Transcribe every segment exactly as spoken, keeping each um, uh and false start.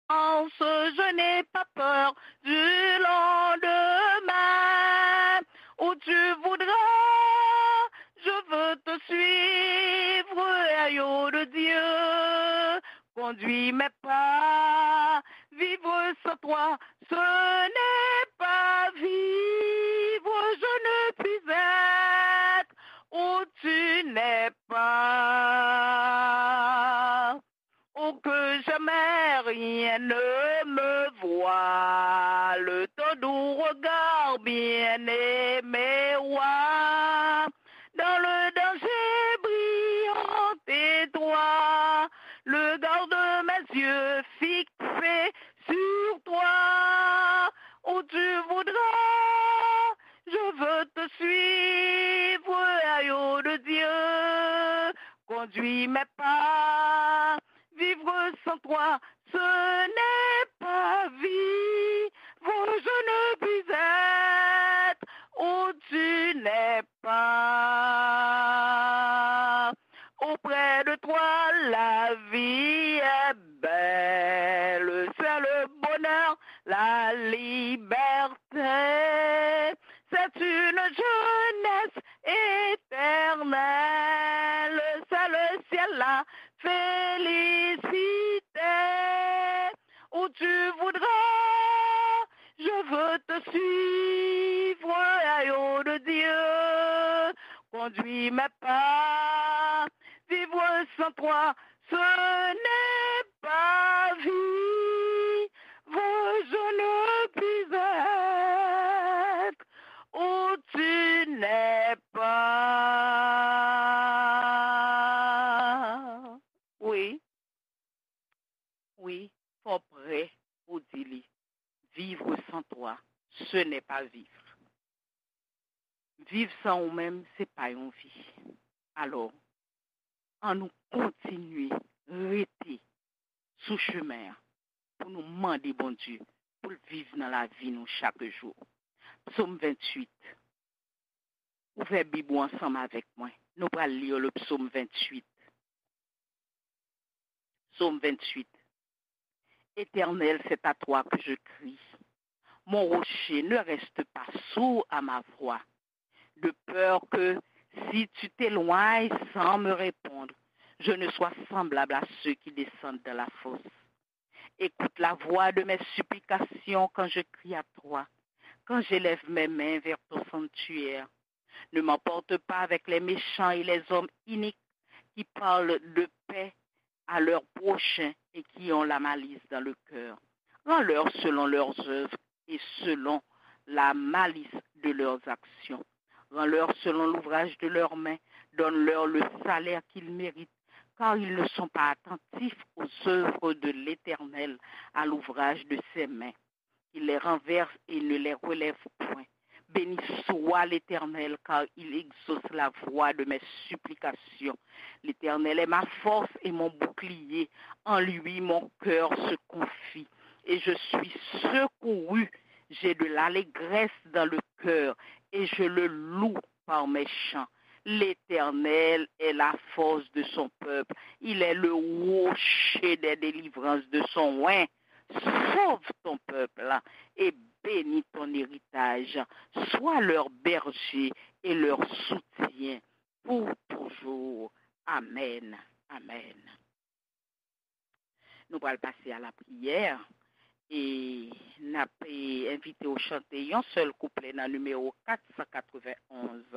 Je n'ai pas peur du lendemain. Où tu voudras, je veux te suivre, agneau de Dieu. Conduis mes pas, vivre sans toi, ce n'est pas vivre. Je ne puis être où tu n'es pas. Oh, que jamais rien ne me voile, ton doux regard bien-aimé roi. Dans le danger brillant et droit, le garde mes yeux fixés sur toi. Où tu voudras, je veux te suivre, agneau de Dieu. Conduis mes pas, vivre sans toi, ce n'est pas vivre. Je ne puis être où tu n'es pas. Auprès de toi, la vie est belle. C'est le bonheur, la liberté. C'est une jeunesse éternelle. C'est le ciel, la félicité. Où tu voudras, je veux te suivre, agneau de Dieu. Conduis mes pas, vivre sans toi, ce n'est pas vivre. Je ne puis être où tu n'es pas. Wi. Wi, fò w prè pou di li. Vivre sans toi, ce n'est pas vivre. Viv san ou menm, se pa yon vi. Alò, ann nou kontinye rete sou chemen an pou nou mande Bondye pou l viv nan lavi nou chak jou. Psaume vingt-huit. Ouvè Bib ou ansanm avèk mwen. Nou pral li le psaume vingt-huit. Psaume vingt-huit. Éternel, c'est à toi que je crie. Mon rocher, ne reste pas sourd à ma voix, de peur que, si tu t'éloignes sans me répondre, je ne sois semblable à ceux qui descendent dans la fosse. Écoute la voix de mes supplications quand je crie à toi, quand j'élève mes mains vers ton sanctuaire. Ne m'emporte pas avec les méchants et les hommes iniques qui parlent de paix à leur prochain et qui ont la malice dans le cœur. Rends-leur selon leurs œuvres et selon la malice de leurs actions. Rends-leur selon l'ouvrage de leurs mains. Donne-leur le salaire qu'ils méritent, car ils ne sont pas attentifs aux œuvres de l'Éternel, à l'ouvrage de ses mains. Il les renverse et ne les relève point. Béni soit l'Éternel, car il exauce la voix de mes supplications. L'Éternel est ma force et mon bouclier. En lui, mon cœur se confie, et je suis secouru. J'ai de l'allégresse dans le cœur, et je le loue par mes chants. L'Éternel est la force de son peuple. Il est le rocher des délivrances de son oint. Sauve ton peuple et bénis ton héritage. Sois leur berger et leur soutien pour toujours. Amen. Amen. Nou pral pase a la priyè e n ap, eh, envite w chante yon sèl kouplè nan nimewo kat san katrevenn onz.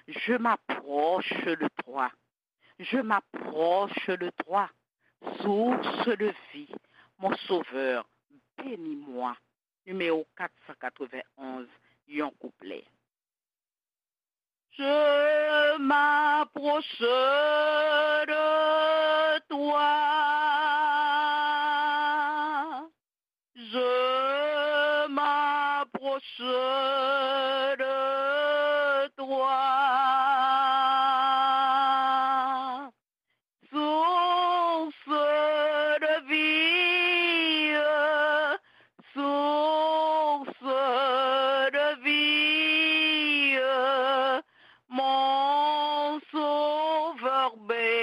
Je m'approche de toi. Je m'approche de toi, source de vie, mon sauveur, bénis-moi. Nimewo kat san katrevenn onz, yon kouplè. Je m'approche de toi. Je m'approche de toi. Source de vie, source de vie, mon sauveur, bénis-moi.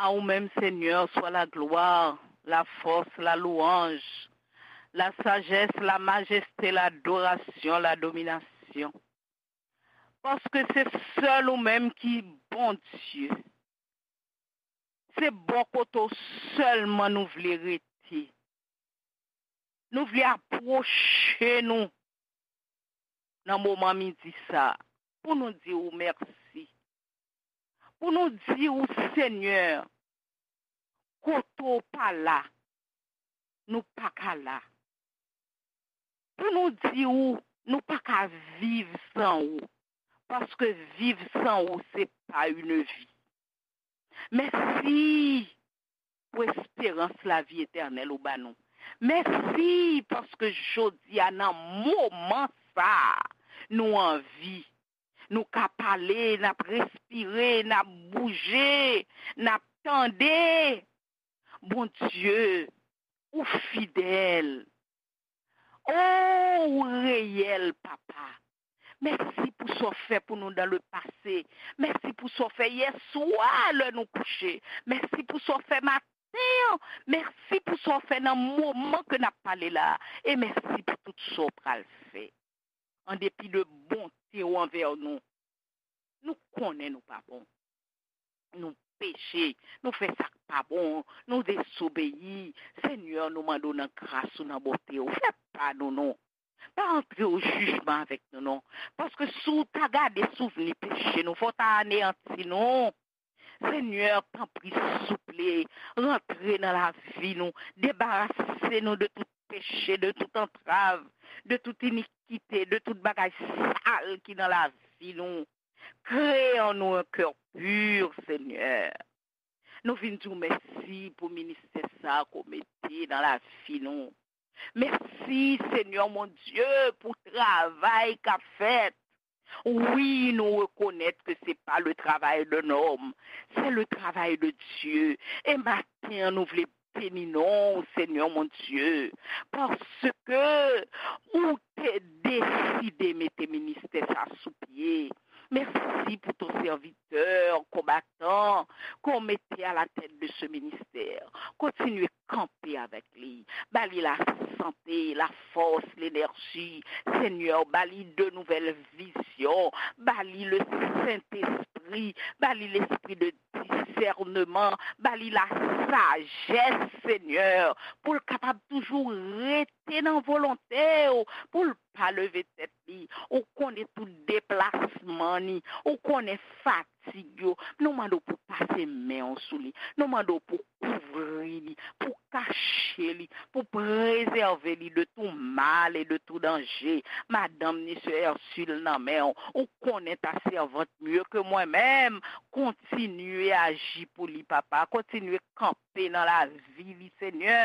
A ou menm, Senyè, swa laglwa, lafòs, lalouwanj, lasajès, lamajeste, ladorasion, ladominasyon. Paske se sèl ou menm ki Bondye. Se bò kote w sèlman nou vle rete. Nou vle apwoche nou nan moman midi sa a, pou nou di ou mèsi. Pou nou di ou, Senyè, kote w pa la, nou pa ka la. Pou nou di ou, nou pa ka viv san ou, paske viv san ou, se pa une vie. Mèsi pou esperans lavi etènèl ou ba nou. Mèsi paske jodi a, nan moman sa a, nou anvi. Nou ka pale, n ap respire, n ap bouje, n ap tande. Bondye, ou fidèl. O, ou reyèl, Papa. Mèsi pou sa w fè pou nou dans le passé. Mèsi pou sa w fè yè swa lè nou kouche. Mèsi pou sa w fè maten an. Mèsi pou sa w fè nan moman ke n ap pale la a. E mèsi pou tout sa w pral fè. An depi de bonte w anvè nou, nou konnen nou pa bon. Nou peche, nou fè sa k pa bon, nou dezobeyi. Senyè, nou mande w nan gras ou, nan bonte w, fè pa nou non. Pa antre o jijman avèk nou non. Paske si w ta gade souvni peche nou, fò w ta aneyanti nou. Senyè, tanpri, souple, rantre nan lavi nou, debarase nou de tout peche, de tout antrav, de tout inikite, de tout bagay sal ki nan lavi nou. Kreye an nou un cœur pur, Senyè. Nou vin di w mèsi pou ministè sa a ke w mete nan lavi nou. Mèsi, Senyè mon Dye, pou travay k ap fèt. Wi, nou rekonèt ke se pa le travay d'un homme, c'est le travail de Dieu. E maten an, nou vle beni non w, Senyè mon Dye, paske ou te deside mete ministè sa sou pye. Mèsi pou ton sèvitè konbatan ke w mete à la tête de ce ministère. Kontinye kanpe avèk li. Ba li lasante, lafòs, lenèji. Senyè, ba li de nouvèl vizyon. Ba li le Sentespri. Ba li lespri de disèneman. Ba li lasajès, Senyè, pou l kapab toujou rete nan volonte w, pou l pa leve tèt li. Ou konnen tout deplasman ni. Ou konnen fatig yo. Nou mande w pou pase men w sou li. Nou mande w pou kouvri li, pou kache li, pou prezève li de tout mal et de tout danger. Madanm ni sè Ursule nan men w. Ou konnen ta sèvant mieux que moi-même. Kontinye aji pou li, Papa. Kontinye kanpe nan lavi li, Senyè.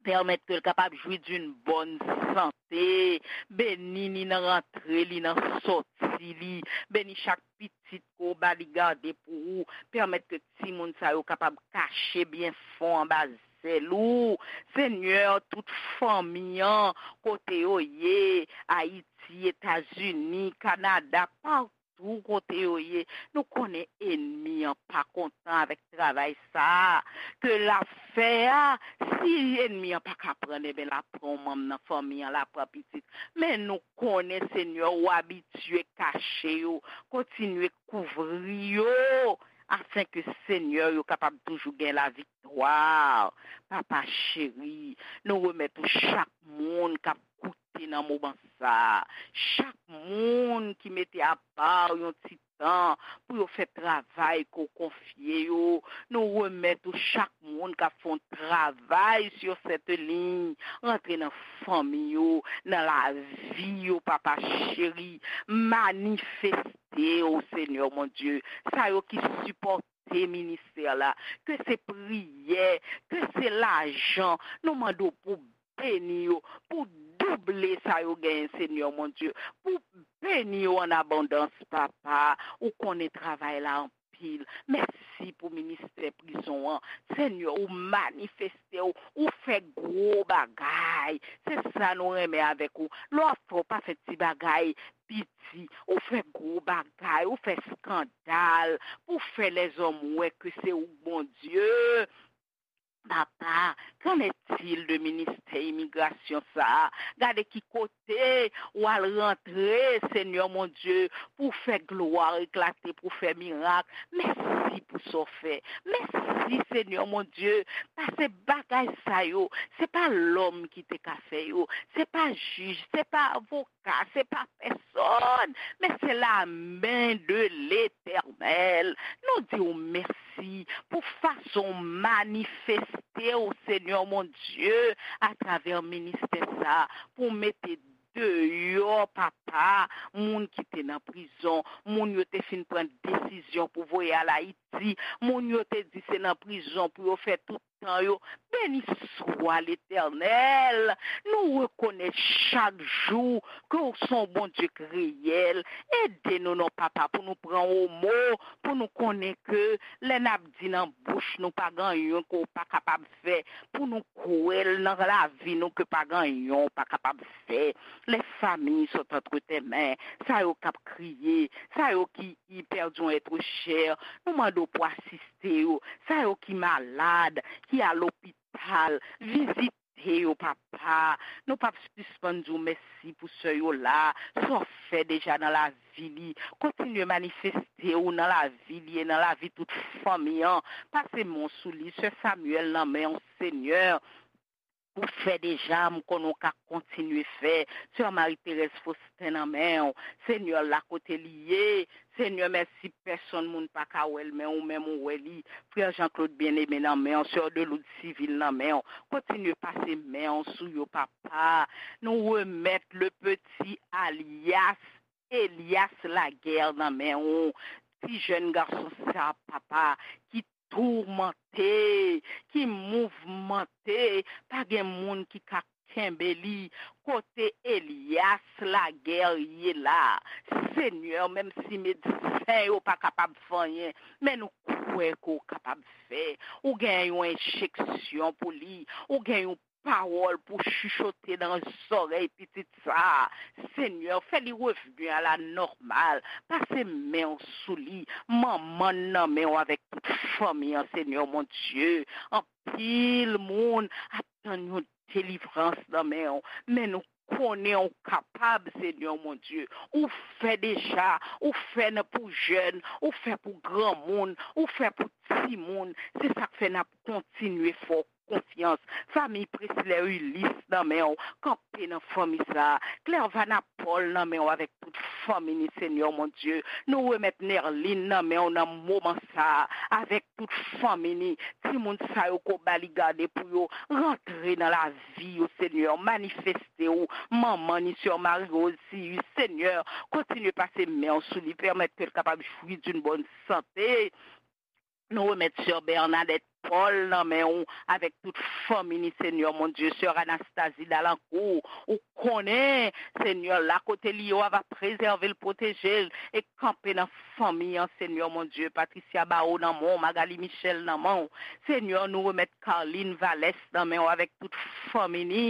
Pèmèt ke l kapab jwi d'une bonne santé. Beni li nan rantre li, nan sòti li. Beni chak pitit ke w ba li gade pou ou. Pèmèt ke timoun sa yo kapab kache byen fon anba zèl ou. Senyè, tout fanmi an, kote yo ye, Ayiti, Etazini, Kanada, pa tou kote yo ye, nou konnen ènmi an pa kontan avèk travay sa a ke l ap fè a. Si ènmi an pa ka pran l, enben, l ap pran yon manm nan fanmi an, l ap pran pitit. Men nou konnen, Senyè, ou abitye kache yo, kontinye kouvri yo, afenke, Senyè, yo kapab toujou gen laviktwa. Papa cheri, nou remèt ou chak moun k ap koute nan moman sa a. Chak moun ki mete apa yon ti tan pou yo fè travay ke w konfye yo. Nou remèt ou chak moun k ap fè yon travay sur cette ligne. Rantre nan fanmi yo, nan lavi yo, Papa cheri. Manifeste w, Senyè mon Dye. Sa yo ki sipòte ministè la, ke se priyè, ke se lajan, nou mande w pou beni yo, pou double sa yo genyen, Senyè mon Dye, pou beni yo an abondans, Papa. Ou konnen travay la anpil. Anpil. Mèsi pou ministè prizon an. Senyè, ou manifeste w, ou fè gwo bagay. Se sa nou renmen avèk ou. Lè w ap fè, w pa fè ti bagay piti. Ou fè gwo bagay, ou fè eskandal pou fè lèzòm wè ke se ou k Bondye. Papa, qu'en est-il de ministè imigrasyon sa a? Gade ki kote w al rantre, Senyè mon Dye, pou fè glwa eklate, pou fè mirak. Mèsi pou sa w fè. Mèsi, Senyè mon Dye, paske bagay sa yo, se pa lòm ki te ka fè yo. Se pa jij, se pa avoka, se pa pèsòn, men se la men de Letènèl. Nou di w mèsi pou fason w manifeste w, Senyè mon Dye, atravè ministè sa a, pou w mete deyò, papa, moun ki te nan prizon, moun yo te fin pran desizyon pou voye al Ayiti, moun yo te di se nan prizon pou yo fè tout tan yo. Beni swa Letènèl. Nou rekonèt chak jou ke w se yon Bondye k reyèl. Ede nou non, papa, pou nou pran w o mo, pou nou konnen ke lè n ap di nan bouch nou pa gen anyen ke w pa kapab fè, pou nou kwè l nan lavi nou ke pa gen anyen w pa kapab fè. Les familles sont entre tes mains. Sa yo k ap kriye, sa yo ki, ki pèdi yon èt chè, nou mande w pou asiste yo. Sa yo ki malad, ki a lopital, vizite yo, papa. Nou p ap sispann di w mèsi pou sè yo la, sa w fè deja nan lavi li. Kontinye manifeste w nan lavi li e nan lavi tout fanmi an. Pase men w sou li, sè Samuel nan men w, Senyè. Ou fè deja, m konnen w ka kontinye fè. Sè Marie Thérèse Faustin nan men w. Senyè, la kote li ye. Senyè, mèsi, pèsonn moun pa ka wè l, men ou menm ou wè li. Frè Jean Claude Bien-Aimé nan men w, sè Deloud Civil nan men w. Kontinye pase men w sou yo, papa. Nou remèt le petit alias Elias Laguerre nan men w. Ti jèn gason sa, papa, ki toumante, ki mouvmante, pa gen moun ki ka kenbe li. Kote Elias Laguerre ye la? Senyè, menm si medsen yo pa kapab fè anyen, men nou kwè ke w kapab fè. Ou gen yon enjeksyon pou li, ou gen yon pawòl pou chichote nan zòrèy pitit sa a. Senyè, fè li revni a la nòmal. Pase men w sou li. Manman n nan men w avèk tout fanmi an, Senyè mon Dye. Anpil moun ap tann yon delivrans nan men w, men nou konnen w kapab, Senyè mon Dye. Ou fè deja, ou fè nan pou jèn, ou fè pou granmoun, ou fè pou timoun. Se sa k fè n ap kontinye fè w konfyans. Fanmi Presley Ulysse nan men w, kanpe nan fanmi sa a. Clervana Paul nan men w avèk tout fanmi ni, Senyè mon Dye. Nou remèt Nerline nan men w nan moman sa a, avèk tout fanmi ni. Timoun sa yo ke w ba li gade pou yo, rantre nan lavi yo, Senyè. Manifeste w, manman ni, sè Marie Rose Cius, Senyè. Kontinye pase men w sou li, pèmèt ke l kapab jwi d'une bonne santé. Nou remèt sè Bernadette Paul nan men w avèk tout fanmi ni, Senyè mon Dye. Sè Anastasie Dalancourt, ou konnen, Senyè, la kote li ye, w a va prezève l, pwoteje l e kanpe nan fanmi an, Senyè mon Dye. Patricia Barreau nan men w, Magali Michel nan men w. Senyè, nou remèt Carline Valès nan men w avèk tout fanmi ni,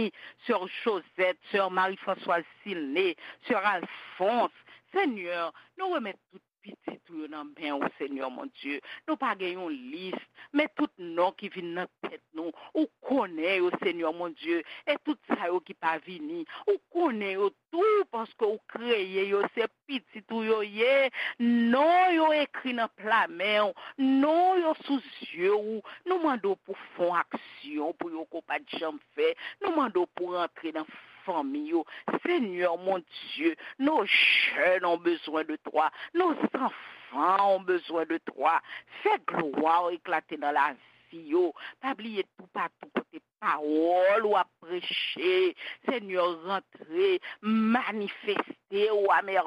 sè Josette, sè Marie Françoise Silné, sè Alphonse. Senyè, nou remèt tout pitit ou yo nan men w, Senyè mon Dye. Nou pa gen yon lis, men tout non ki vin nan tèt nou, ou konnen yo, Senyè mon Dye, e tout sa yo ki pa vini, ou konnen yo tou, paske ou kreye yo, se pitit ou yo ye, non yo ekri nan pla men w, non yo sou zye w. Nou mande w pou fè yon aksyon pou yo ke w pa t janm fè. Nou mande w pou rantre nan fanmi yo. Senyè mon Dye, nos jeunes ont besoin de toi, nos enfants ont besoin de toi. Fè glwa w eklate nan lavi yo. Pa bliye toupatou kote pawòl ou ap preche. Senyè, rantre, manifeste w a mèvèy.